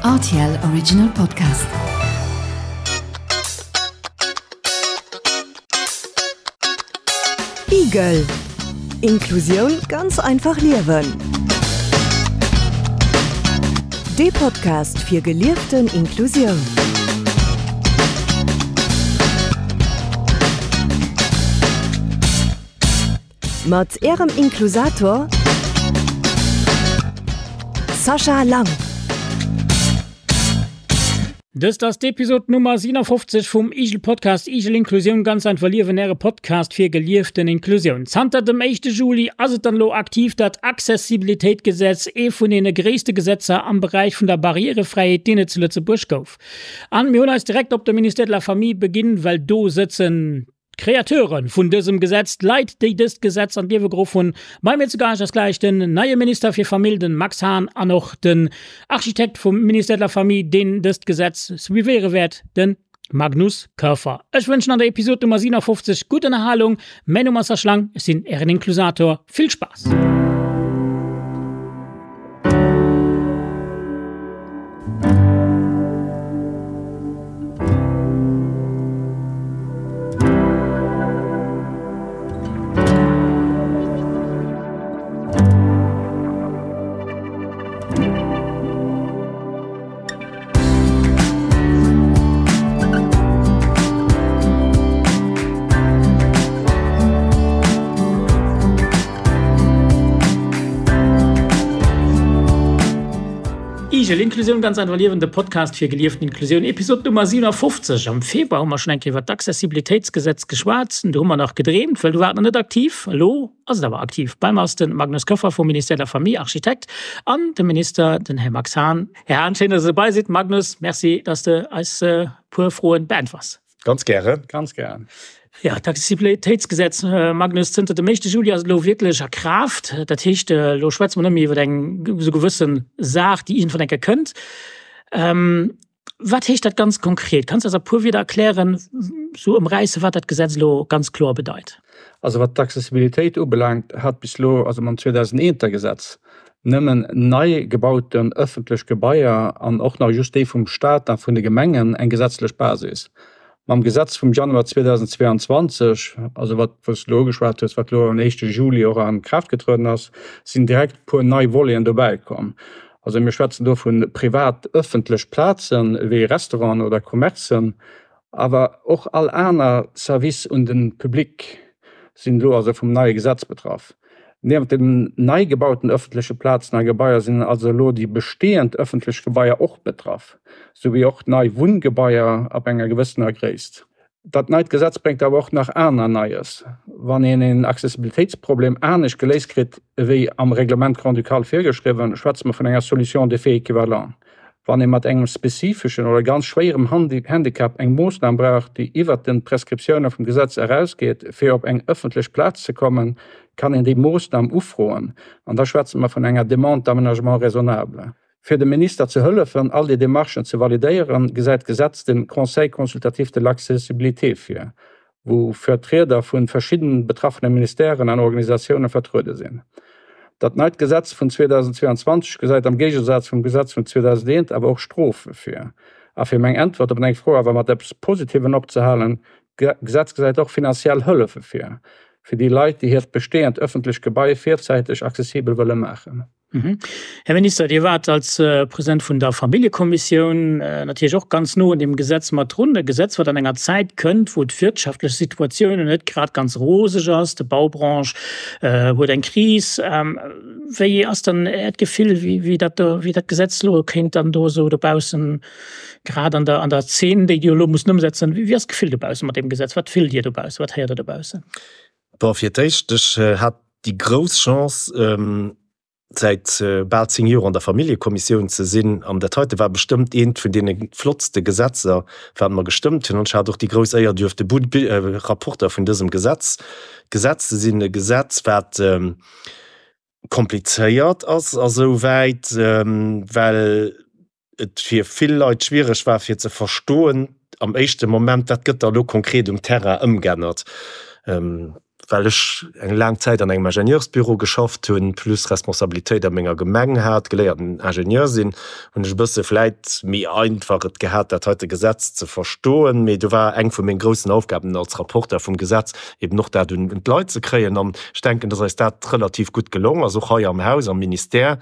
Rtl Original Podcast. Igel Inklusioun ganz einfach liewen. Dee Podcast fir gelieften Inklusioun. Mat Ärem Inklusator Sascha Lang. Dëst ass d'Episod Nummer 57 vum Igel Podcast Igel Inklusioun ganz einfach liewen, Äre Podcast fir gelieften Inklusioun. Zanter dem éischte Juli ass et dann elo aktiv, dat Accessibilitéitgesetz, ee vun deene gréisste Gesetzer am Beräich vun der Barrièrefräiheet, deen et zu Lëtzebuerg gouf. An mir hunn eis direkt op de Ministère de la Famille beginn, well do sëtzen D'Createure vun dësem Gesetz, d'Leit, déi dëst Gesetz an d'Liewe geruff hunn. Bei mir zu Gaascht ass gläich den neie Minister fir Famill, den Max Hahn, an och den Architekt vum Ministère de la Famille, deen dëst Gesetz suivéiere wäert, den Magnus Koerfer. Ech wënschen an der Episod Nummer 57 gutt Ënnerhalung. Mäin Numm ass Serge Lang, ech sinn Ären Inklusator. Vill Spaass! Igel, Inklusioun ganz einfach liewen, de Podcast fir gelieften Inklusioun, Episod Nummer 57. Am Februar hu mer schonn eng Kéier iwwer d'Accessibilitéitsgesetz geschwat. Do hu mer nach gedreemt, well do war et nach net aktiv. Elo ass et awer aktiv. Bei mer ass de Magnus Koeffer vum Ministère de la Famille, Architekt, an de Minister, den Här Max Hahn. Här Hahn, schéin, dass Der dobei sidd. Magnus, merci, dass de eis e puer Froen beäntwers. Ganz gären. Ganz gären. Ja, d'Accessibilitéitsgesetz, Magnus, zënter dem éischte Juli ass et elo wierklech a Kraaft. Dat heescht, elo schwätze mer net méi iwwer eng esou gewësse Saach, déi iergendwann eng Kéier kënnt. Wat heescht dat ganz konkret? Kanns du eis a puer Wieder erklären, esou ëmräissen, wat dat Gesetz elo ganz kloer bedeit? Also wat d'Accessibilitéit ubelaangt, hat bis elo, also mam 2001er Gesetz, nëmmen nei gebauten ëffentlech Gebaier an och nach just déi vum Staat a vun de Gemengen eng gesetzlech Basis. Mam Gesetz vum Januar 2022, also wat wou s de elo ugeschwat hues, wat elo am éischte Juli och a Kraaft getrueden ass, sinn direkt e puer nei Voleten dobäi komm. Also mir schwätzen do vu privat ëffentlech Plazen, wéi Restauranten oder Commercen, Awer och all aner Service un de Public sinn elo also vum neie Gesetz betraff. Niewent den nei gebauten ëffentleche Plazen a Gebaier sinn also elo déi bestehend ëffentlech Gebaier och betraff, sou wéi och nei Wunngebaier ab enger gewëssener Gréisst. Dat neit Gesetz bréngt awer och nach aner Neies. Wann een een Accessibilitéitsproblem anescht geléist kritt ewéi am Règlement grand-ducal virgeschriwwen, schwätze mer vun enger Solution d'effet équivalent. Wann ee mat engem spezifeschen oder ganz schwéierem Handicap eng Moossnam brauch, déi iwwert de Prescriptioune vum Gesetz erausgeet, fir op eng ëffentlech Plaz ze kommen, kann een déi Moossnam ufroen, an da schwätze mer vun enger Demande d'aménagement raisonnable. Fir dem Minister ze hëllefen, all déi Demarchen ze validéieren, gesäit d'Gesetz de Conseil consultatif de l'accessibilité vir. wou Vertrieder vu verschidden betraffene Ministèren an Organisatioune vertruede sinn. Dat neit Gesetz vun 2022 gesäit am Géigesaz vum Gesetz vun 2001 awer och Strofe vir. A fir meng Äntwert op deng Fro awer mat eppes Positivem opzehalen, D'Gesetz gesäit och finanziell Hëllefe vir, fir déi Leit, déi hiert bestehend ëffentlecht Gebai virzäiteg accessibel wëlle maachen. Här Minister, Dir waart als President vun der Familljekommissioun natierlech och ganz no un deem Gesetz mat drun. E Gesetz, wat an enger Zäit kënnt, wou d'wirtschaftlech Situatioun net grad ganz roseg ass. D'Baubranche huet eng Kris. Wéi ass dann Äert Gefill, wéi dat do, wéi dat Gesetz elo kéint dann do esou dobaussen, grad an der, an der Zeen, déi Dir elo musst ëmsetzen, wéi ass d'Gefill dobaussen mat deem Gesetz? Wat fillt Dir dobaussen? Wat héiert Der dobaussen? Bon, fir d'éischt, ech hat déi grouss Chance, säit bal 10 Joer an der Familljekommissioun ze sinn. An dat heite war bestëmmt eent vun deene flottste Gesetzer, wat mer gestëmmt hunn. An ech hat och déi grouss Éier, duerfte Rapporter vun dësem Gesetz Gesetz ze sinn. E Gesetz, wat komplizéiert ass asouwäit, well et fir vill Leit schwiereg war fir ze verstoen am éischte Moment, wat gëtt da elo konkret um Terrain ëmgännert. Well ech eng laang Zäit an engem Ingenieursbüro geschafft hunn, plus Responsabilitéit a menger Gemeng hat, geléierten Ingenieur sinn, hunn ech e bësse vläit méi einfach et gehat, dat heite Gesetz ze verstoen. Mee do war eng vu menge groussen Aufgaben als Rapporteur vum Gesetz eben och dat un d'Leit ze kréien. An ech denken, dass eis dat relativ gutt gelong ass, och hei am Haus, am Ministère,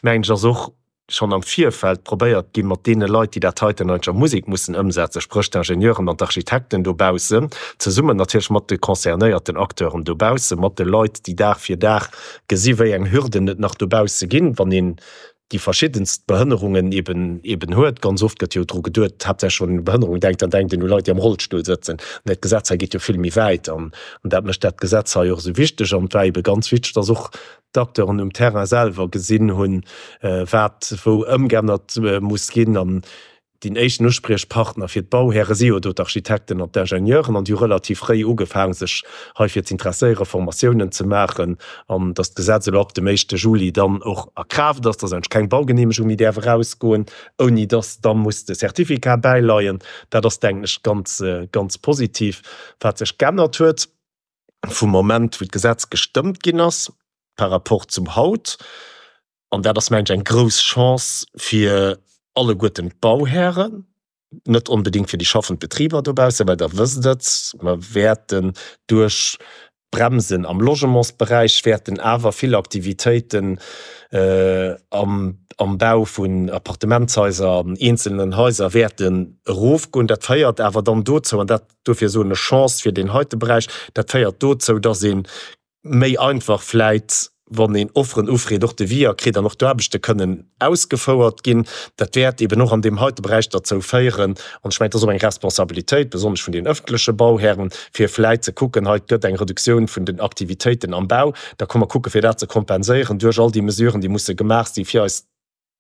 mengen ech, ass och schonn am Virfeld probéiert ginn, mat deene Leit, déi dat heiten eigentlech a Musek mussen ëmsetzen, spréch d'Ingenieuren an d'Architekten dobaussen, zesummen natierlech mat de concernéierten Acteuren dobaussen, mat de Leit, déi Dag fir Dag gesi wéi eng Hürden et nach dobausse ginn, wann een déi verschiddenst Behënnerungen eben eben huet. Ganz oft gëtt jo dru geduet, haaptsächlech wann een u Behënnerung denkt, dann denkt een u Leit, déi am Rollstull sëtzen. Mä d'Gesetz hei geet jo vill méi wäit an dat mécht dat Gesetz hei och esou wichteg. An et war ebe ganz wichteg, dass och d'Acteuren um Terrain selwer gesinn hunn, wat wou ëmgeännert muss ginn. An deen éischten Uspriechpartner fir d'Bauhäre si jo do d'Architekten an d'Ingenieuren. An déi hu relativ fréi ugefaang, sech heifir z'interesséieren, Formatiounen ze maachen. An datt d'Gesetz elo ab dem éischte Juli dann och a Kraaft ass, datt eigentlech keng Baugeneemegung méi däerf erausgoen, ouni datt da muss de Certificat bäileien, dat ass, denken ech, ganz, ganz positiv. Wat sech geännert huet, vum Moment, wou d'Gesetz gestëmmt ginn ass, par rapport zum haut. An dat ass, mengen ech, eng grouss Chance fir alleguerten d'Bauhären, net onbedéngt fir déi schaffend Betriber dobaussen, well Der wësst et, mer wäerten duerch d'Bremsen am Logementsberäich wäerten awer vill Aktivitéiten am Bau vun Appartementshaiser an eenzelnen Haiser wäerten erofgoen. Dat féiert awer dann dozou, an dat Dofir soen ech Chance fir deen heite Beräich. Dat féiert dozou, dass ee méi einfach vläit, wann een Offeren ufreet, och Deviser kritt an och d'Aarbechte kënnen ausgefouert ginn. Dat wäert eben och an deem heite Beräich derzou féieren, an ech mengen, et ass och eng Responsabilitéit, besonnesch vun den öffentleche Bauhären, fir vläit ze kucken, hei et gëtt eng Reduktioun vun den Aktivitéiten am Bau, da komme mer kucke fir dat ze kompenséieren duerch all déi Mesuren, déi musse gemaach si fir eis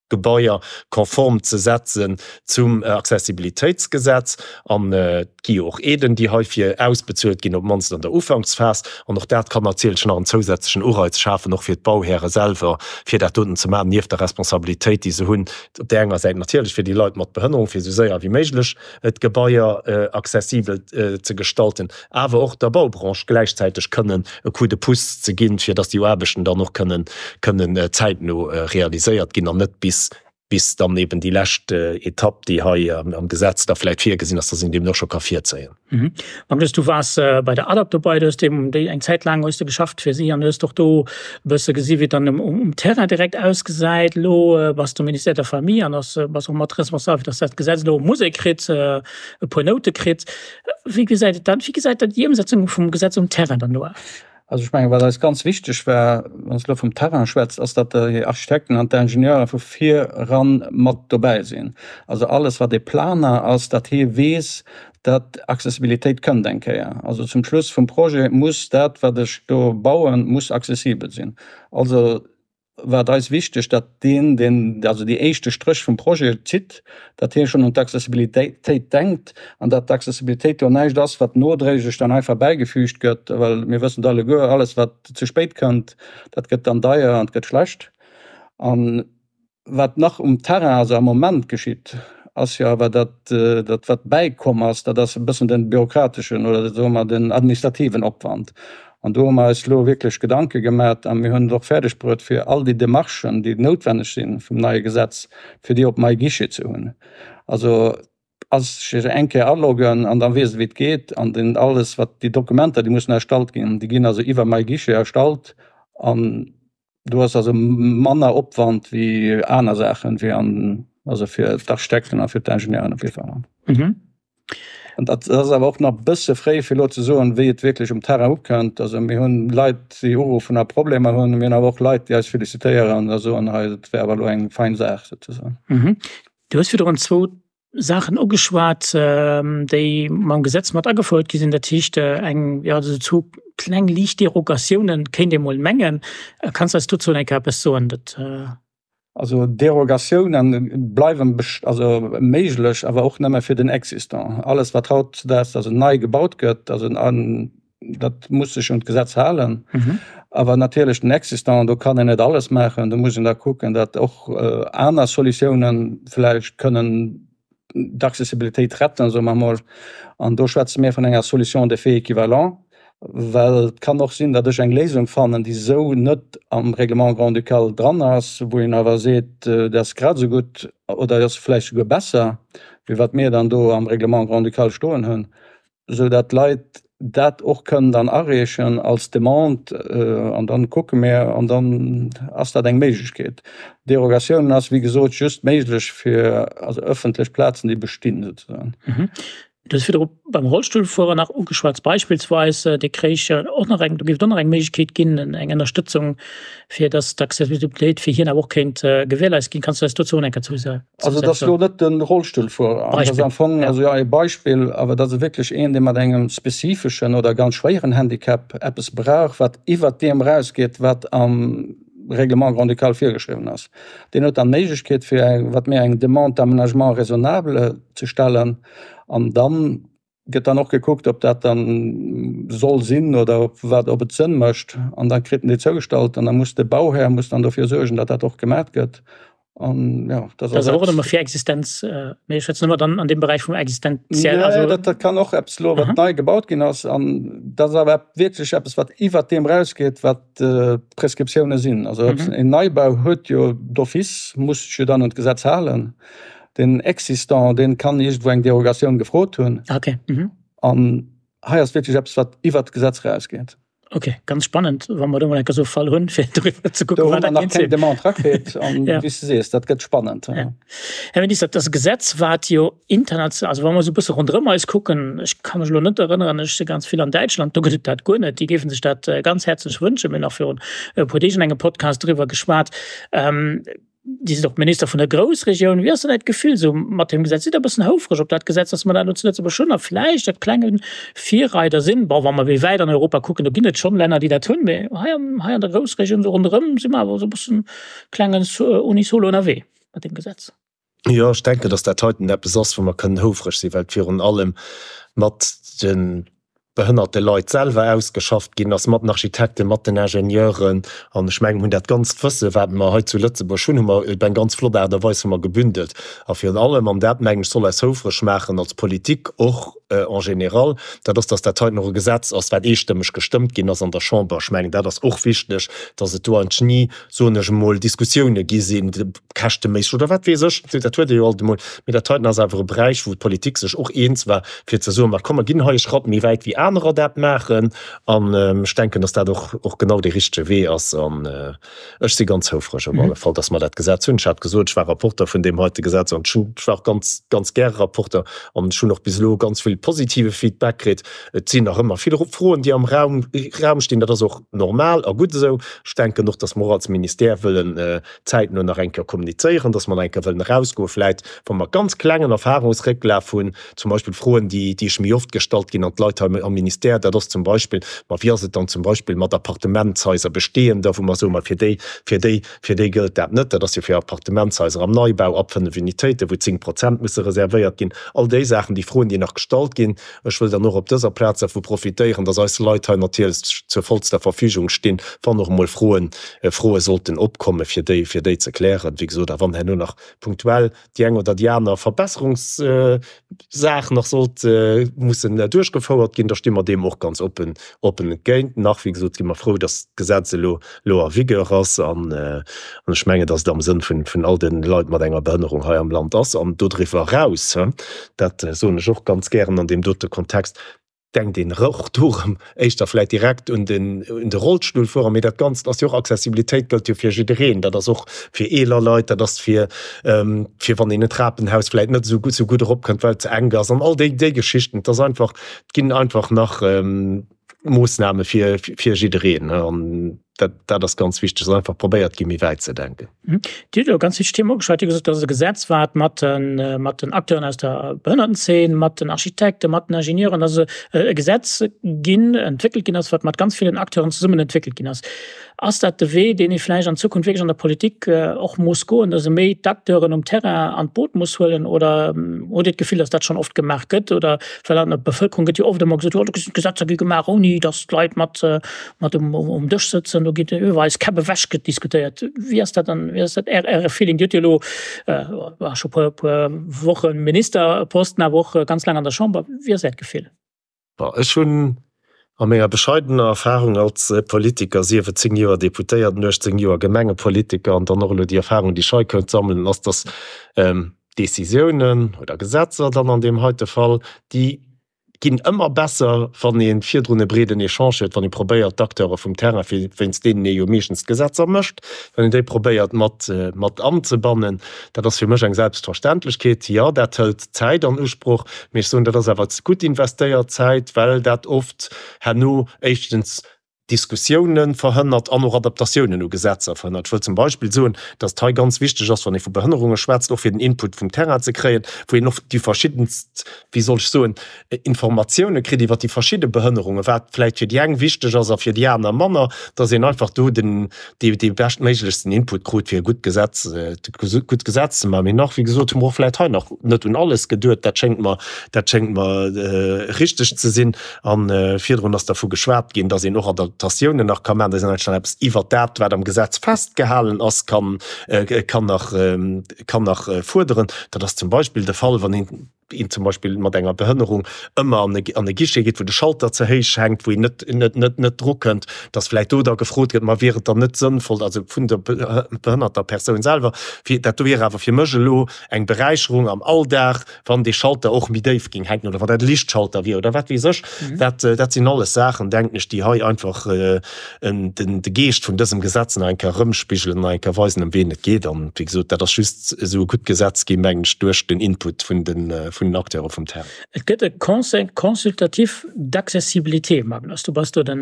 Gebaier konform ze setzen zum Accessibilitéitsgesetz. An et gi jo och Aiden, déi heifir ausbezuelt ginn, op d'mannst an der Ufanksphas. An och dat kann natierlech nach en zousätzlechen Ureiz schafen, och fir d'Bauhäre selwer, fir dat doten ze maachen, nieft der Responsabilitéit, déi se hunn, op där enger Säit natierlech fir déi Leit mat Behënnerung, fir esou séier wéi méiglech d'Gebaier accessibel ze gestalten, awer och der Baubranche gläichzäiteg kënnen e Coup de pouce ze ginn, fir dass déi Aarbechten dann och kënnen kënnen zäitno realiséiert ginn an net bis bis dann eben déi lescht Etapp, déi hei am Gesetz da vläicht virgesinn ass, dass een déi eben och scho ka virzéien. Magnus, du waars bei der ADAPT dobei, du hues deem déi eng Zäit laang hues de geschafft fir si an hues och do e bësse gesi wéi et dann um Terrain direkt ausgesäit. Elo bass de am Ministère der Famille an ass bass och mat responsabel fir dass dat Gesetz elo Musek kritt, e puer Noute kritt. Wéi gesäit et dann, wéi gesäit dann déi Ëmsetzung vum Gesetz um Terrain dann elo aus? Also ech mengen, wat eis ganz wichteg war, wann s de elo vum Terrain schwätzt, ass, datt déi Architekten an d'Ingenieure vu vir eran mat dobäi sinn. Also alles, wat e Planer ass, datt hie weess, datt Accessibilitéit kënnt eng Kéier. Also zum Schluss vum Projet muss dat, wat ech do bauen, muss accessibel sinn. Also war et eis wichteg, datt deen, deen also déi éischte Stréch vum Projet zitt, datt hie schonn un d'Accessibilitéit denkt an datt d'Accessibilitéit do näischt ass, wat nodréiglech dann einfach bäigefügt gëtt, well mir wëssen et alleguer, alles wat ze spéit kënnt, dat gëtt dann deier an et gëtt schlecht. An wat nach um Terrain, also am Moment geschitt, ass jo awer, datt dat wat bäikomm ass, dat ass e bëssen de bürokrateschen oder soe mer den administrativen Opwand. An do hu mer eis elo wierklech Gedanke gemat a mir hunn et och fäerdeg bruet, fir all déi Demarchen, déi noutwenneg si vum neie Gesetz, fir déi op MyGuichet ze hunn. Also ass sech eng Kéier aloggen an da weess e wéi et geet. An den alles wat déi Dokumenter, déi mussen erstallt ginn, déi ginn also iwwer MyGuichet erstallt an Do ass also manner Opwand wéi aner Saachen, wéi an, also fir d'Architekten a fir d'Ingenieuren op jidde Fall. Mhm. An dat ass awer och nach e bësse fréi fir elo ze soen, wéi et wierklech um Terrain ukënnt. Also mir hunn Leit, déi uruffen a Problemer hunn. Mir hunn awer och Leit, déi eis felicitéieren a soen, hei dat wär awer elo eng fein Saach souzesoen. Mhm. Du hues virdrun zwou Saachen ugeschwat, déi mam Gesetz mat agefouert gi sinn. Dat heescht eng, jo, esou zwou kleng liicht Derogatiounen, kéint ee mol mengen. Kanns de eis dozou eng Kéier eppes soen? Dat. Also Derogatiounen bleiwen also méiglech, awer och nëmme fir den Existant. Alles wat hautdesdaags also nei gebaut gëtt, also an dat muss sech un d'Gesetz halen. Awer natierlech den Existant, do kann een net alles maachen. Do muss een da kucken, datt och aner Solutiounen vläicht kënnen d'Accessibilitéit retten, soe mer emol. An do schwätze mir vun enger Solution d'effet équivalent. Well et kann och sinn, datt ech eng Léisung fannen, déi esou net am Règlement grand-ducal dran ass, wou een awer seet, dat ass grad esou gutt oder ass vläicht souguer besser, wéi wat mir dann do am Règlement grand-ducal stoen hunn, esou datt d'Leit dat och kënnen dann areechen als Demande an dann kucke mir an dann ass dat eng Méiglechkeet. Derogatioun ass wéi gesot just méiglech fir also ëffentlech Plazen, déi bestinn souzesoen. Du hues virdru beim Rollstullfuerer nach ugeschwat, beispillsweis, dee kréich och nach eng, do géif et och nach eng Méiglechkeet ginn, eng Ënnerstëtzung, fir datt d'Accessibilitéit fir hien awer och kéint gewährleist ginn. Kanns du eis dozou och eng Kéier zou Also dat ass elo net de Rollstullfuerer, dat ass am Fong also jo e Beispill, awer dat ass wierklech een, dee mat engem spezifeschen oder ganz schwéieren Handicap eppes brauch, wat iwwert deem erausgeet, wat am Règlement grand-ducal virgeschriwwen ass. Deen huet dann d'Méiglechkeet, fir eng, wat mir eng Demande d'aménagement raisonnable ze stellen. An dann gëtt dann och gekuckt, ob dat dann soll sinn oder ob wat, ob et Sënn mécht. An da kritt en déi zougestallt an da muss de Bauhär muss dann dofir suergen, datt dat och gemat gëtt. An jo, dat ass och ëmmer fir Existenz, mee ech schwätzen ëmmer dann an deem Beräich vum Existenziell. Also dat, dat kann och eppes elo, wat nei gebaut ginn ass. An dat ass awer wierklech eppes, wat iwwert deem erausgeet, wat d'Prescriptioune sinn. Also en Neibau huet jo d'office, muss sech jo dann un d'Gesetz halen. Den Existant, dee kann iergendwou eng Derogatioun gefrot hunn. Okay. Mhm. An hei ass wierklech eppes, wat iwwert d'Gesetz erausgeet. Okay, ganz spannend, wa mer do mol eng Kéier esou e Fall hunn, fir doriwwer ze kucken, wat dat kéint sinn. Do hu mer nach keng Demande erakritt an wéi s de sees, dat gëtt spannend. Ja. Här Minister, dat ass e Gesetz, wat jo international, also wa mer esou e bësse ronderëm eis kucken, ech ka mech elo net erënneren, ech si ganz vill an Däitschland, do gëtt et dat guer net, déi géife sech dat ganz häerzlech wënschen. Mir hunn nach virun e puer Deeg an engem Podcast driwwer geschwat. Dir sidd och Minister vun der Groussregioun. Wéi ass dann Äert Gefill esou mat deem Gesetz? Sidd Der e bëssen houfreg op dat Gesetz, datt mer dat elo zu Lëtzebuerg hunn a vläicht e klenge Virreider sinn? Bon, wa mer méi wäit an Europa kucken, do ginn et schonn Länner, déi dat hunn, mee hei am, hei an der Groussregioun esou ronderëm si mer awer esou e bëssen klengen unisono ënnerwee mat deem Gesetz. Jo, ech denken, datt dat heiten eppes ass, wou mer kënnen houfreg sinn, well et virun allem mat de behënnerte Leit selwer ausgeschafft ginn ass, mat den Architekten, mat den Ingenieuren. An ech mengen, mir hunn dat ganzt Wësse, wat mer hei zu Lëtzebuerg hunn, hu mer op eng ganz flott Aart a Weis hu mer gebündelt. A virun allem, an dat mengen ech soll eis houfreg maachen als Politik och en général, dat ass, datt dat heiten och e Gesetz ass, wat eestëmmeg gestëmmt ginn ass an der Chamber. Ech mengen, dat ass och wichteg, datt et do eigentlech ni, soen ech emol, Diskussioune gi sinn, käschteméisseg oder wat weess ech, dat huet ee jo alt emol, mee dat heiten ass awer e Beräich, wou d'Politik sech och eens war, fir ze soen, ma komm, mer ginn hei e Schratt méi wäit wéi anerer dat maachen. An ech denken, datt dat och och genau dee richtege Wee ass. An ech si ganz houfreg op alle Fall, datt mer dat Gesetz hunn. Ech hat gesot, ech war Rapporter vun deem heite Gesetz an ech hunn, ech war och ganz, ganz gäre Rapporter an ech hunn och bis elo ganz vill positive Feedback kritt. Et sinn nach ëmmer vill Froen, déi am Raum, Raum stinn. Dat ass och normal a gutt esou. Ech denken och, datt mer och als Ministère wëllen zäitno nach eng Kéier kommunizéieren, dass mer nach eng Kéier wëllen erausgoen, vläit wa mer ganz klengen Erfahrungsrécklaf hunn, zum Beispill Froen, déi déi ech méi oft gestallt ginn an d'Leit hei am Ministère, dat ass zum Beispill, ma wéi ass et dann zum Beispill mat Appartementshaiser, bestehender, wou mer soen, ma fir déi, fir déi, fir déi gëllt dat net, dat ass jo fir Appartementshaiser am Neibau ab 5 Unitéiten, wou 10 Prozent musse reservéiert ginn. All déi Saachen, déi Froen, déi nach gestallt ginn. Ech wëll dann och op dëser Plaz dervu profitéieren, dass eis Leit hei natierlech zur vollster Verfügung stinn, wann och emol Froen, Froe sollten opkommen, fir déi, fir déi ze klären. Wéi gesot, a wann herno nach punktuell déi eng oder déi aner Verbesserungssaach nach sollt mussen duerchgefouert ginn, da sti mer deem och ganz oppen, oppen entgéint. Nach, wéi gesot, si mer frou, dass d'Gesetz elo, elo en vigueur ass an ech mengen, dass et am Sënn vun, vun all de Leit mat enger Behënnerung hei am Land ass. An dodriwwer eraus, dat soen ech och ganz gären an deem dote Kontext, denkt een och do erëm éischter vläicht direkt un den, un de Rollstullfuerer, mee dat Ganzt ass jo och, Accessibilitéit gëllt jo fir jiddereen, dat ass och fir eeler Leit, dat ass fir, fir wann een en Trapenhaus vläicht net esou gutt, esou gutt eropkënnt, well et ze enk ass an all déi, déi Geschichten. Et ass einfach, et ginn einfach nach Moossname fir, fir jiddereen an dat, dat ass ganz wichteg, dass einfach probéiert gi méi wäit ze denken. Dir hutt elo ganz wichteg Themen ugeschwat. Dir hutt gesot, dat ass e Gesetz, wat mat de, mat den Acteuren aus der Behënnertenzeen, mat den Architekten, mat den Ingenieuren, also e Gesetz ginn, entwéckelt ginn ass, wat mat ganz villen Acteuren zesummen entwéckelt ginn ass. Ass dat de Wee, deen ee vläicht an Zukunft wierklech an der Politik och muss goen, dass ee méi d'Acteuren um Terrain an d'Boot muss huelen? Oder hutt Dir d'Gefill, dass dat schonn oft gemaach gëtt? Oder well an der Bevëlkerung gëtt jo oft ëmmer gesot, jo do sinn d'Gesetzer gi gemaach, ouni dass d'Leit mat mat um um Dësch sëtzen, do geet iwwer eis Käpp ewech gëtt diskutéiert. Wéi ass dat dann, wéi ass dat Är Äre Feeling? Dir hutt jo elo scho puer puer Woche Ministerposten, awer och ganz laang an der Chamber. Wéi ass Äert Gefill? Bon, ech hunn. A menger bescheidener Erfahrung als Politiker, sief et 10 Joer Deputéierten, 18 Joer Gemengepolitiker an dann och elo déi Erfahrung, déi ech hei konnt sammelen, ass, dass Décisiounen oder Gesetzer dann an deem heite Fall, déi ginn ëmmer besser, wann ee virdrun e breeden Echange huet, wann ee probéiert, d'Acteure vum Terrain, fir wéinst deenen ee jo meeschtens d'Gesetzer mécht, wann een déi probéiert mat, mat anzebannen. Dat ass fir mech eng Selbstverständlechkeet. Jo, dat hëlt Zäit an Usproch, mee ech soen, dat ass awer gutt investéiert Zäit, well dat oft herno éischtens Diskussiounen verhënnert an och Adaptatiounen u Gesetzer verhënnert. Ech wëll zum Beispill soen, dass et hei ganz wichteg ass, wann ee vu Behënnerunge schwätzt, och fir den Input vum Terrain ze kréien, wou een och déi verschiddenst, wéi soll ech soen, Informatiounen kritt iwwert déi verschidde Behënnerungen, wat vläicht fir déi eng wichteg ass a fir déi aner manner, dass een einfach do den, dee, dee beschtméiglechsten Input krut, fir e gutt Gesetz, gutt Gesetz ze maachen. Mee nach, wéi gesot, hu mer och vläicht hei nach net un alles geduet. Dat schéngt mer, dat schéngt mer richteg ze sinn. A virdrun ass dervu geschwat ginn, dass een och Adaptatiounen nach ka maachen, dass een eigentlech nach eppes iwwert dat, wat am Gesetz festgehalen ass, kann, kann nach, kann nach fuerderen. Dat ass zum Beispill de Fall, wann een, een zum Beispill mat enger Behënnerung ëmmer an e, an e Guichet geet, wou de Schalter ze héich hänkt, wou een net, net, net, net drukënnt, dass vläicht do da gefrot gëtt, ma wier et dann net sënnvoll, also vun der behënnerter Persoun selwer, fir, dat do wier awer fir mech elo eng Beräicherung am Alldag, wann dee Schalter och méi déif géing hänken oder wann dat e Lichtschalter wier oder wat weess ech. Dat, dat sinn alles Saachen, denken ech, déi hei einfach den, de Geescht vun dësem Gesetz nach eng Kéier erëmspigelen, nach eng Kéier weisen, ëm ween et geet. An, wéi gesot, dat ass just esou e gutt Gesetz ginn, mengen ech, duerch den Input vun den, vun den Acteure vum Terrain. Et gëtt e Conseil consultatif d'accessibilité, Magnus, du bass do de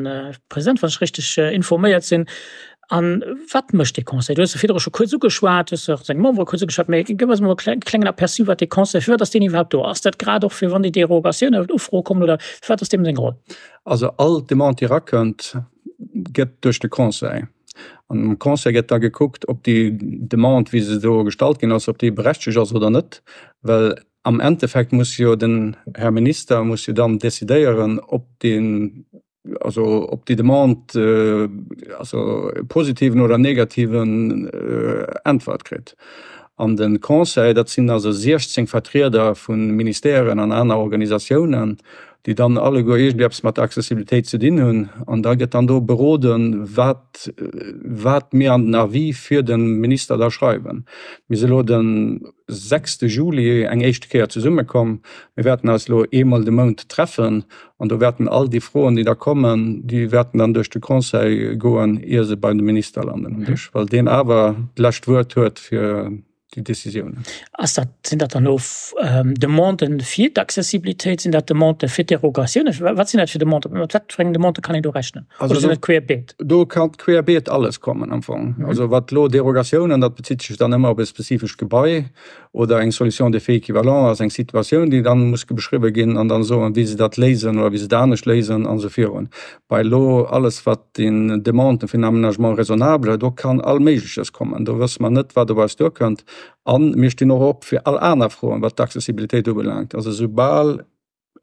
President, wann ech richteg informéiert sinn. A wat mécht dee Conseil? Du hues e virdru scho kuerz ugeschwat, hues och seng Membere kuerz ugeschwat, mee gëff eis emol e klengen Aperçu, wat dee Conseil, firwat ass deen iwwerhaapt do? Ass dat grad och fir wann déi Derogatiounen oder Ufroe kommen oder firwat ass deem seng Roll? Also all Demande, déi erakënnt, gëtt duerch de Conseil. An am Conseil gëtt da gekuckt, ob déi Demande, wéi se do gestallt ginn ass, ob déi berechtegt ass oder net. Well am Endeffekt muss jo den Här Minister muss jo dann decidéieren, ob deen also ob déi Demande also e positiven oder negativen Äntwert kritt. An de Conseil, dat sinn also 16 Vertrieder vu Ministèren an aner Organisatiounen, déi dann alleguer iergendwéi eppes mat der Accessibilitéit ze dinn hunn. An da gëtt dann do beroden, wat wat mir an den Avis fir de Minister da schreiwen. Mir si elo de sechste Juli eng éischte Kéier zesummekomm. Mir wäerten eis elo eemol de Mount treffen An do wäerten all déi Froen, déi da kommen, déi wäerten dann duerch de Conseil goen, ier se bei de Minister landen um Dësch, well deen awer d'lescht Wuert huet fir déi Décisiounen. Ass dat, sinn dat dann elo Demanden fir d'Accessibilitéit? Sinn dat Demandë fir d'Derogatiounen? Wat sinn dat fir Demanden? Mat wat fir engen Demandë kann een do rechnen? Oder sinn dat querbeet? Do ka querbeet alles kommen am Fong. Also wat elo Derogatiounen, dat bezitt sech dann ëmmer op e spezifescht Gebai. Oder eng Solution d'effet équivalent ass eng Situatioun, déi dann muss beschriwwen ginn an dann soen, wéi se dat léisen oder wéi se et anescht léisen an esou virun. Bei elo alles, wat den Demanden fir en Aménagement raisonnable, do kann all Méigleches kommen. Do wësse mer net, wat op eis duerkënnt. A mir stinn och op fir all aner Froen, wat d'Accessibilitéit ubelaangt. Also soubal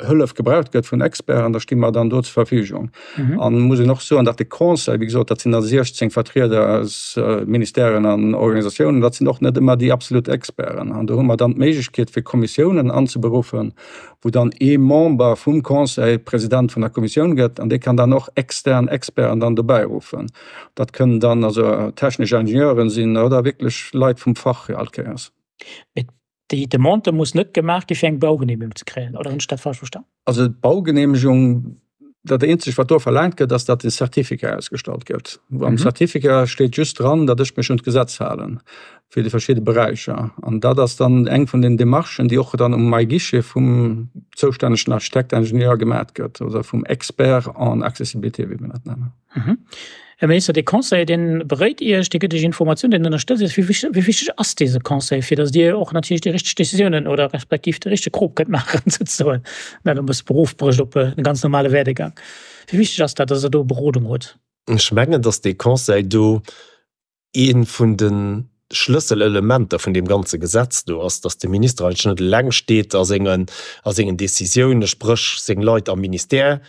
Hëllef gebraucht gëtt vun Experten, da sti mer dann do zur Verfügung. Mhm. An muss een och soen, datt de Conseil, wéi gesot, dat sinn da 16 Vertrieder aus äh, Ministèren an Organisatiounen, dat sinn och net ëmmer déi absolut Experten. An do hu mer dann d'Méiglechkeet fir Kommissiounen anzeberuffen, wou dann ee Member vum Conseil President vun der Kommissioun gëtt an dee kann dann och extern Experten dann dobäi ruffen. Dat kënnen dann also technesch Ingenieuren sinn oder wierklech Leit vum Fach all Kéiers. Déi Demande muss net gemaach gi fir eng Baugenehmegung ze kréien, oder hunn ech dat falsch verstan? Also d'Baugenehmegung, dat eenzegt wat do verlaangt gëtt, ass datt e Certificat ausgestallt gëtt. Am Certificat steet just dran, datt ech mech un d'Gesetz halen fir déi verschidde Beräicher. An dat ass dann eng vun den Demarchen, déi och dann um MyGuichet vum zoustännegen Architekt, Ingenieur gemat gëtt oder vum Expert en accessibilité, wéi mir dat nennen. Här Minister, dee Conseil, dee beréit Iech, dee gëtt Iech Informatiounen, deen ënnerstëtzt Iech. Wéi wichteg ass dese Conseil, fir datt Dir och natierlech déi richteg Décisiounen oder respektiv de richtege Krop kënnt maachen, souzesoen, dat e bësse Beruff brécht op e ganz normale Werdegang? Wéi wichteg ass dat, datt Der do Berodung hutt? Ech mengen, datt dee Conseil do Ee vun de Schlësselelementer vun deem ganze Gesetz do ass, dass de Minister eigentlech net eleng steet a sengen, a sengen Décisiounen, spréch seng Leit am Ministère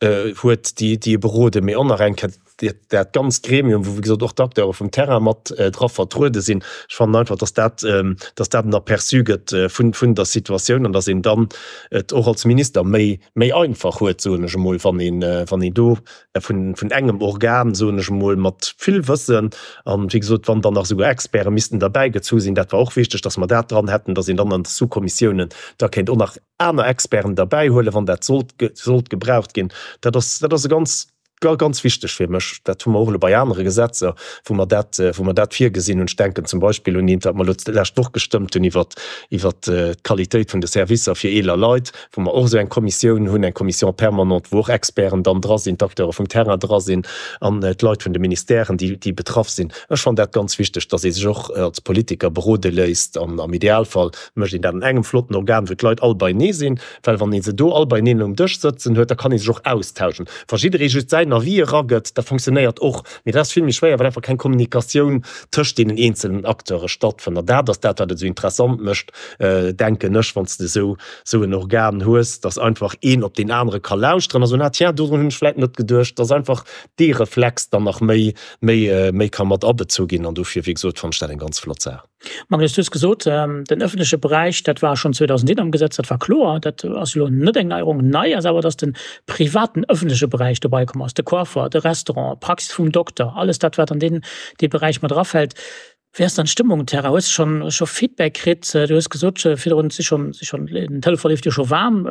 huet, déi, déi e beroden, mee och nach eng Kéier. dat ganzt Gremium, wou wéi gesot och d'Acteure vum Terrain mat dra vertruede sinn, ech fannen einfach, dass dat, dass dat en Aperçu gëtt vun, vun der Situatioun an dass een dann et och als Minister méi, méi einfach huet, soen ech emol, wann een, wann een do vun, vun engem Organ, soen ech emol, mat vill Wëssen an, wéi gesot, wann dann nach esouguer Experte missten derbäigezu sinn, dat war och wichteg, dass mer dat dran hätten, dass een dann an de Sous-Kommissiounen da kéint och nach aner Experten derbäihuelen, wann dat sollt, sollt gebraucht ginn. Dat ass, dat ass e ganz, ganz wichteg fir mech. Dat hu mer och elo bei anere Gesetzer, wou mer dat, wou mer dat virgesinn hunn. Ech denken zum Beispill un eent, wat mer elo d'lescht Woch gestëmmt hunn iwwert, iwwert d'Qualitéit vun de Servicer fir eeler Leit, wou mer och esou eng Kommissioun hunn, eng Commission permanente, wou och Experten dann dra sinn, d'Acteure vum Terrain dra sinn an d'Leit vun de Ministèren, déi, déi betraff sinn. Ech fannen dat ganz wichteg, dass ee sech och als Politiker berode léisst an am Idealfall mécht een dat an engem flotten Organ, wou d'Leit all beienee sinn, well wann ee se do all beieneen um Dësch sëtzen huet, da kann ee sech och austauschen. Wa jidderee just säin Avis eragëtt, dat fonctionnéiert och, mee dat ass vill méi schwéier, well einfach keng Kommunikatioun tëscht deenen eenzelen Acteure stattfënnt. An dat ass dat, wat et esou interessant mécht, denken ech, wann s de esou esou en Organ hues, dass einfach een op deen anere ka lauschteren a soen, ah tiens, dodrun hunn ech vläicht net geduecht, dass einfach dee Reflex dann nach méi méi méi ka mat abezu ginn. An dofir, wéi gesot, fannen ech dat eng ganz flott Saach. Magnus, du hues gesot, den öffentleche Beräich, dat war schonn 2001 am Gesetz, dat war kloer, dat ass elo net eng Neierung. Nei ass awer, datt de privaten öffentleche Beräich dobei komm ass, de Coiffer, de Restaurant, d'Praxis vum Dokter, alles dat, wat an deen dee Beräich mat erafält. Wéi ass dann d'Stëmmung um Terrain? Hues de schonn scho Feedback kritt? Du hues gesot virdrun, et si schonn, si schonn, den Telefon leeft jo scho waarm.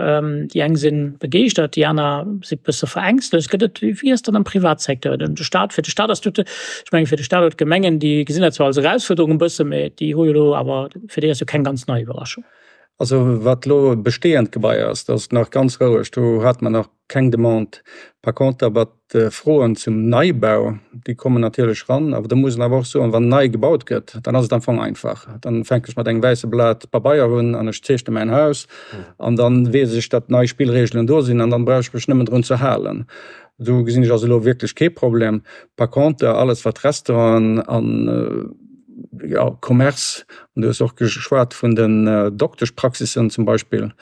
Déi eng si begeeschtert, déi aner si bësse verängstlegt. Gëtt et, wéi ass dat am Privatsecteur? De Staat, fir de Staat ass tout, Ech mengen, fir de Staat oder d'Gemengen, déi gesinn dat zwar als Erausfuerderung e bësse, mä déi hu jo elo awer, fir déi ass jo keng ganz nei Iwwerraschung. Also wat elo bestehend Gebai ass, dat ass nach ganz roueg, do hate mer nach keng Demande. Par contre awer d'Froen zum Neibau, déi kommen natierlech ran. Awer do muss een awer och soen, wann nei gebaut gëtt, dann ass et am Fong einfach. Dann fänken ech mat engem wäisse Blat Pabeier un an ech zeechne mäin Haus an dann weess ech, datt nei Spillregelen do sinn an dann brauch ech mech nëmmen drun ze halen. Do gesinn ech also elo wierklech kee Problem. Par contre, alles wat Restauranten an, jo, Commerce, an du hues och geschwat vun den Dokteschpraxissen zum Beispill,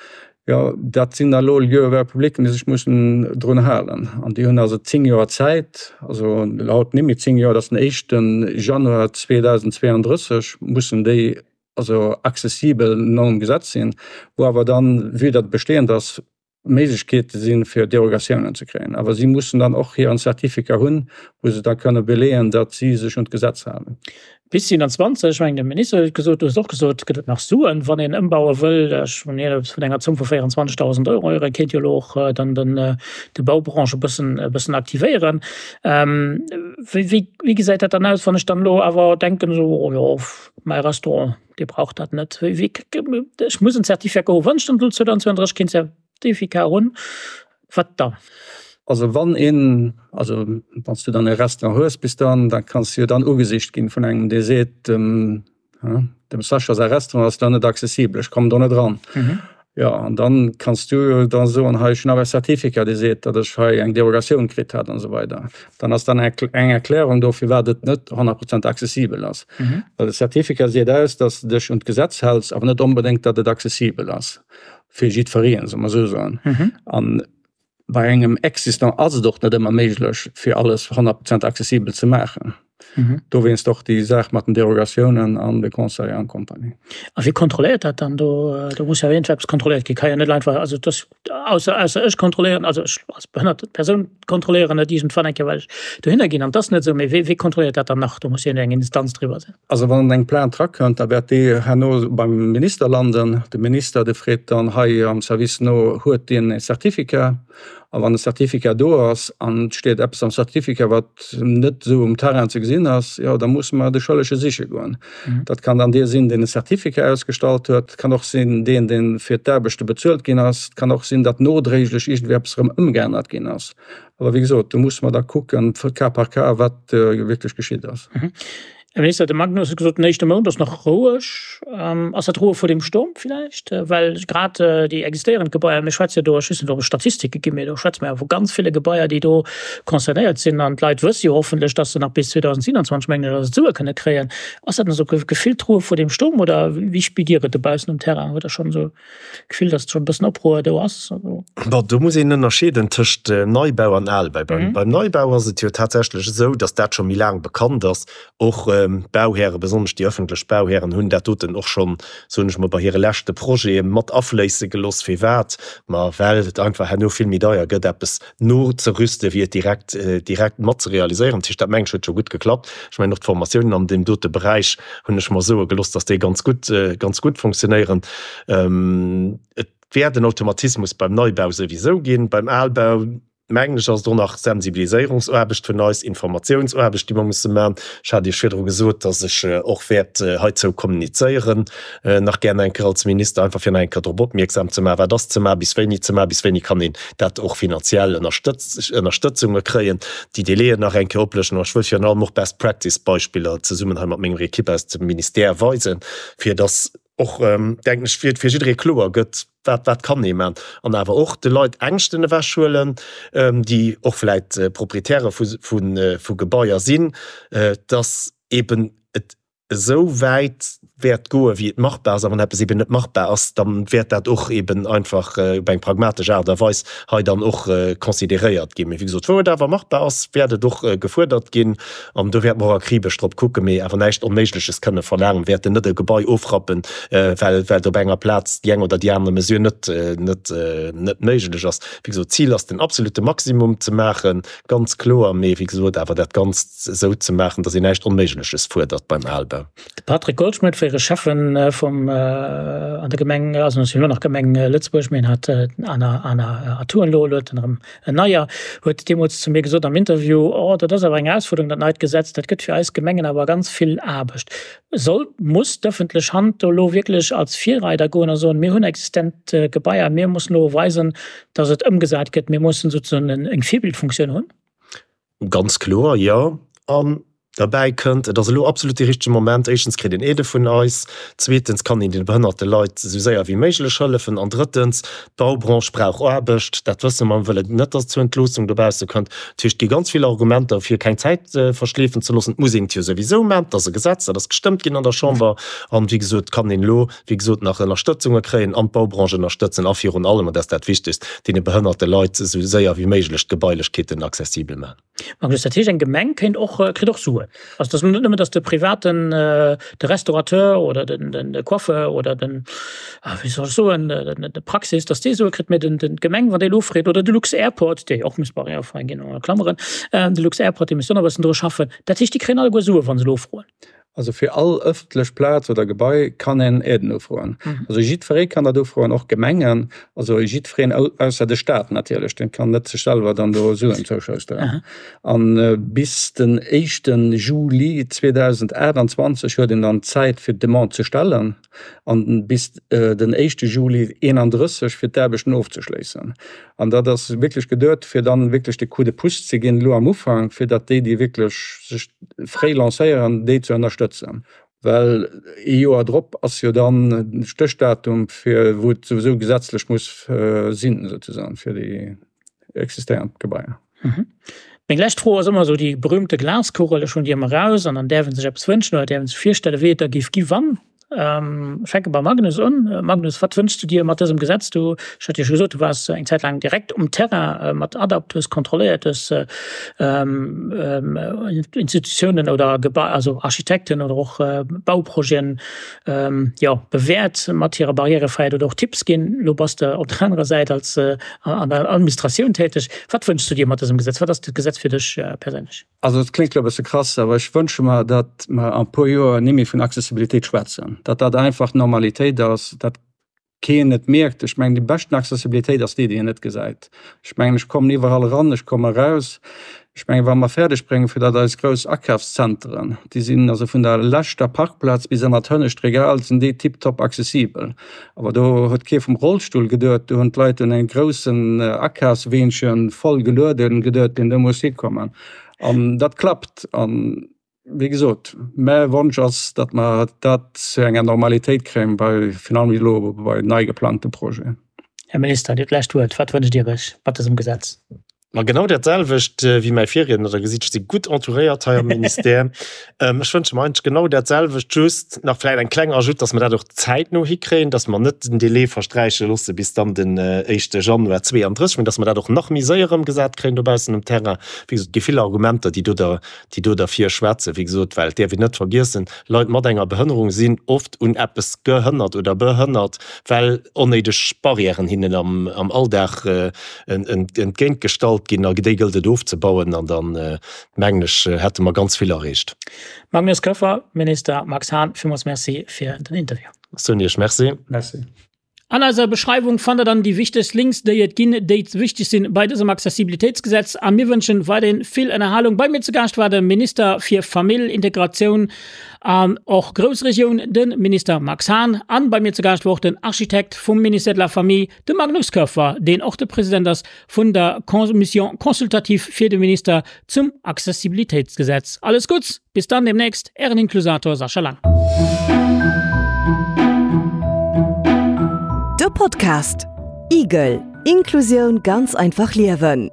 jo, dat sinn da elo Lieux ouverts publics, déi sech mussen drun halen. An déi hunn also 10 Joer Zäit, also haut net méi 10 Joer, dat ass den éischte Januar 2032 mussen déi also accessibel nom Gesetz sinn, wou awer dann, vue datt et bestehend ass, Méiglechkeete sinn, fir Derogatiounen ze kréien. Awer si mussen dann och hiren Certificat hunn, wou se da kënne beleeën, datt si sech un d'Gesetz halen. Bis 27, ech mengen, de Minister huet et gesot, du hues et och gesot, gëtt et nach Suen, wann een ëmbaue wëll. Ech hunn hien eppes vun enger Zomm vu 24.000 Euro héieren, kéint jo elo och dann den, de Baubranche e bëssen, e bëssen aktivéieren. Wéi, wéi, wéi gesäit dat dann aus, wann ech dann elo awer denken, esou, oh jo, mäi Restaurant, Dir braucht dat net. Ech muss en Certificat hu wann ech dann 2032 keen Certificat hunn, wat dann? Also wann een, also wann s du dann e Restaurant hues bis dann, da kanns du jo dann ugesicht ginn vun engem dee seet, dem dem Sascha säi Restaurant ass da net accessibel, ech kommen do net eran. Jo, an dann kanns du jo da soen, hei ech hunn awer e Certificat dee seet, datt ech hei eng Derogatioun kritt hat an esou weider. Dann ass dann eng Erklärung do firwat et net 100 Prozent accessibel ass. Well de Certificat seet aus, datt s de dech un d'Gesetz häls, awer net onbedéngt, datt et accessibel ass fir jiddwereen, solle mer esou soen. An Bei engem Existant ass et och net ëmmer méiglech, fir alles 100 Prozent accessibel ze maachen. Dowéinst och déi Saach mat den Derogatiounen an de Conseil an Compagnie. A wie kontrolléiert dat dann? Do, do muss jo iergendwéi eppes kontrolléiert ginn. Ka jo net einfach, also dass, ausser, ausser ech kontrolléieren, also ech als behënnert Persoun kontrolléieren et iergendwann eng Kéier, well ech dohinner ginn an et ass net esou. Mee wee, wee kontrolléiert dat dann nach? Do muss jo eng Instanz driwwer sinn. Also wann eng Plainte rakënnt, da wäert déi herno beim Minister landen. De Minister, dee freet dann hei am Service no, Huet deen e Certificat? A wann e Certificat do ass an et steet eppes am Certificat, wat net esou um Terrain ze gesinn ass, jo da musse mer de Schëllege siche goen. Dat kann dann dee sinn, deen e Certificat ausgestallt huet, et kann och sinn deen, dee fir d'Aarbechte bezuelt ginn ass, et kann och sinn, datt nodréiglech iergendwéi eppes erëm ëmgeännert ginn ass. Awer wéi gesot, do musse mer da kucken, cas par cas, wat wierklech geschitt ass. Här Minister, de Magnus huet gesot, den éischte Mount ass nach roueg. Ass dat d'Ruhe vor dem Sturm villäicht? Well grad déi existéierend Gebaier, mir schwätze jo do, ech weess net, ob et Statistike ginn, mee do schwätze mer jo vu ganz ville Gebaier, déi do concernéiert sinn. An d'Leit wësse jo hoffentlech, datt se nach bis 2027, mengen ech, ass et, Sue kënne kréien. Ass dat nach esou gefillt d'Ruhe vor dem Sturm oder wéi spiert Dir et dobaussen um Terrain? Hutt Der schonn esou Gefill, datt schonn e bëssen Opruer do ass? Bon, do muss een ënnerscheeden tëscht Neibau an Albau. Beim Neibau ass et jo tatsächlech esou, datt dat scho méi laang bekannt ass. Och d'Bauhäre, besonnesch déi ëffentlech Bauhären, hunn dat doten och schonn, soen ech mol, bei hire leschte Projete mat afléisse gelooss. Firwat? Ma well et einfach herno vill méi deier gëtt, eppes nozerüsten, wéi et direkt, direkt mat ze realiséieren. Dat heescht, dat mengen ech huet scho gutt geklappt. Ech mengen och d'Formatiounen an deem dote Beräich hunn ech mer soe gelooss, dass déi ganz gutt, ganz gutt funktionéieren. Et wäert en Automatismus beim Neibau souwisou ginn. Beim Albau, mengen ech, ass et och nach Sensibiliséierungsaarbecht vun eis, Informatiounsaarbecht, déi mer musse maachen. Ech hat Iech virdru gesot, dass ech och wäert heizou kommunizéieren. nach gären eng Kéier als Minister, einfach fir nach eng Kéier drop opmierksam ze maachen, wat ass ze maachen, bis wéini ze maachen, bis wéini kann een dat och finanziell Ënnerstëtzunge kréien, déi Délaiën nach eng Kéier oplëschten. An ech wëll virun allem och Best Practice Beispiller zesummen hei mat menger Equipe aus dem Ministère weisen, fir dass och, denken ech, fir jidderee kloer gëtt, wat wat kann ee maachen. An awer och de Leit Ängschten ewechhuelen, déi och vläicht Proprietäre vu Gebaier sinn, dass eeben et esou wäit wäert goen, wéi et machbar ass, a wann eppes eben net machbar ass, da wäert dat och eben einfach op eng pragmatesch Aart a Weis hei dann och consideréiert ginn. Mee wéi gesot, wou et awer machbar ass, wäert et och gefuerdert ginn an do wäerte mer och akribesch drop kucken, mee awer näischt Onméigleches kënne verlaangen. Mir wäerten net e Gebai ofrappen, well well op enger Plaz déi eng oder déi aner Mesure net net net méiglech ass. Wéi gesot, d'Zil ass den absolute Maximum ze maachen, Ganz kloer, mee wéi gesot awer dat Ganzt esou ze maachen, datt een näischt Onméigleches fuerdert beim Albau. De Patrick Goldschmidt, fréiere Schäffen vum an der Gemeng, also ass jo elo nach Gemeng Lëtzebuerg, mee en hat aner aner Atouen elo, elo huet en erëm en neier, huet deemools zu mir gesot am Interview, Oh, dat ass awer eng Erausfuerderung, dat neit Gesetz, dat gëtt fir eis Gemengen awer ganz vill Aarbecht. Soll, muss d'ëffentlech Hand do elo wierklech als Virreider goen a soen, mir hunn existent Gebaier, mir mussen elo weisen, datt et ëmgesat gëtt, mir mussen sozusagen eng Virbildfunktioun hunn? Ganz kloer, jo. An derbäi kënnt, et ass elo absolut dee richtege Moment, éischtens kritt een Aidë vun eis, zweetens kann een deene behënnerte Leit esou séier wéi méiglech hëllefen an drëttens, D'Baubranche brauch Aarbecht, dat wësse mer. Mir wëllen net, datt et zu Entloossung dobausse kënnt. Dat heescht, et gi ganz vill Argumenter, fir keng Zäit verschleefen ze loossen. Et muss een et jo souwisou maachen. Et ass e Gesetz, dat ass gestëmmt ginn an der Chamber. An, wéi gesot, kann een elo, wéi gesot, nach Ënnerstëtzunge kréien an d'Baubranche ënnerstëtzen a virun allem, an dat ass dat Wichtegst, deene behënnerte Leit esou séier wéi méiglech d'Gebailechkeeten accessibel maachen. Magnus, dat heescht eng Gemeng kéint och, kritt och Suen. Also et ass net nëmmen, datt de Privaten, de Restaurateur oder den, den de Coiffeur oder den, wéi soll ech soen, de Praxis, datt dee Sue kritt, mä den, den d'Gemeng, wann déi elo freet, oder de Lux-Airport, dee jo och muss barrièrefrei ginn, a Klammeren, de Lux-Airport, dee misst och nach e bëssen dru schaffen. Dat heescht, déi kréien alleguer Sue wa se elo froen. Also fir all ëffentlech Plaz oder Gebai kann een Aiden ufroen. Also jiddweree kann dat ufroen, och Gemengen, also jiddwereen ausser de Staat natierlech, dee kann net sech selwer dann do Suen zouschousteren. A bis den éischte Juli 2028 huet een dann Zäit fir d'Demande ze stellen an bis den éischte Juli 31 fir d'Aarbechten ofzeschléissen. An dat ass wierklech geduet, fir dann wierklech de Coup de pouce ze ginn elo am Ufank, fir datt déi, déi wierklech sech fréi lancéieren, déi ze ënnerstëtzen. Well ee Joer drop ass jo dann de Stéchdatum, fir wou et souwisou gesetzlech muss sinn, souzesoen, fir déi existéierend Gebaier. Meng lescht Fro ass ëmmer esou déi berühmte Glaskugel. Ech hunn déi ëmmer eraus an dann däerf ee sech eppes wënschen oder däerf ee sech virstellen, wéi et da géif gi wann. Ech fänke beim Magnus un. Magnus, wat wënschs du dir mat dësem Gesetz? Du, ech hat jo scho gesot, du waars eng Zäit laang direkt um Terrain mat ADAPT, hues kontrolléiert, hues Institutiounen oder Gebai, also Architekten oder och Bauprojeten, jo, bewäert mat hirer Barrièrefräiheet oder och Tipps ginn. Elo bass de op der anerer Säit als an der Administratioun täteg. Wat wënschs du dir mat dësem Gesetz? Wat ass dat Gesetz fir dech perséinlech? Also et kléngt elo e bësse krass, awer ech wënsche mer, datt mer an e puer Joer ni méi vun Accessibilitéit schwätzen, datt dat einfach d'Normalitéit ass, datt keen et mierkt. Ech mengen, déi beschten Accessibilitéit ass déi, déi een net gesäit. Ech mengen, ech kommen iwwerall eran, ech komme eraus. Ech mengen, wa mer fäerdeg bréngen, fir datt eis grouss Akafszenteren, déi sinn also vun der leschter Parkplaz bis ënnert d'hënnescht Regal sinn déi tiptop accessibel. Awer do huet kee vum Rollstull geduet, do hunn d'Leit un engem groussen Akafsweenche voll gelueden geduet, deen do muss hikommen. An dat klappt. An. Wéi gesot, mäi Wonsch ass, datt mer dat zu enger Normalitéit kréien, bei, virun allem elo bei nei geplangte Projeten. Här Minister, Dir hutt d'lescht Wuert. Wat wënscht Dir Iech mat dësem Gesetz? Ma genau dat selwecht wéi mäi Virriedner. Der gesitt, ech si gutt entouréiert hei am Ministère. Ech wënsche mer eigentlech genau dat selwecht, just nach vläicht eng kleng Ajoute, dass mer dat och zäitno hikréien, dass mer net den Délai versträiche loosse bis dann den éischte Januar 32, mä dass mer dat och nach méi séier ëmgesat kréien dobaussen um Terrain. Wéi gesot, et gi vill Argumenter, déi do déi do derfir schwätzen. Wéi gesot, well et däerf een net vergiessen, Leit mat enger Behënnerung sinn oft un eppes gehënnert oder behënnert, well onnéideg Barrièren hinnen am Alldag entgéintgestallt ginn. A déi gëllt et ofzebauen an dann, mengen ech, hätte mer ganz vill erreecht. Magnus Koeffer, Minister Max Hahn, villmools Merci fir den Interview. Ech soen Iech Merci. Merci. An eiser Beschreiwung fannt der dann déi wichtegst Links, déi et ginn, déi wichteg sinn bei dësem Accessibilitéitsgesetz. A mir wënschen weiderhin vill Ënnerhalung. Bei mir zu Gaascht war de Minister fir Famill, Integratioun an och Groussregioun, de Minister Max Hahn. An bei mir zu Gaascht war och den Architekt vum Ministère de la Famille, de Magnus Koerfer, deen och de President ass vun der Commission consultative fir de Minister zum Accessibilitéitsgesetz. Alles Gutts, bis dann demnächst, Ären Inklusator Sascha Lang. De Podcast Igel, Inklusioun ganz einfach liewen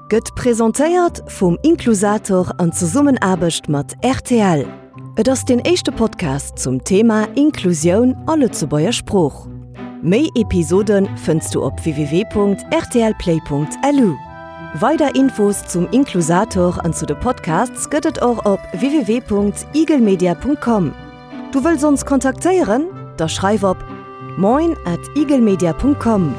gëtt presentéiert vum Inklusator an Zesummenaarbecht mat rtl. Et ass deen éischte Podcast zum Thema Inklusioun a Lëtzebuerger Sprooch. Méi Episode fënns du op www.rtlplay.lu. Weider Infos zum Inklusator an zu de Podcasts gëtt et och op www.igelmedia.com. Du wëlls ons kontaktéieren? Da schreif op moin at igelmedia.com.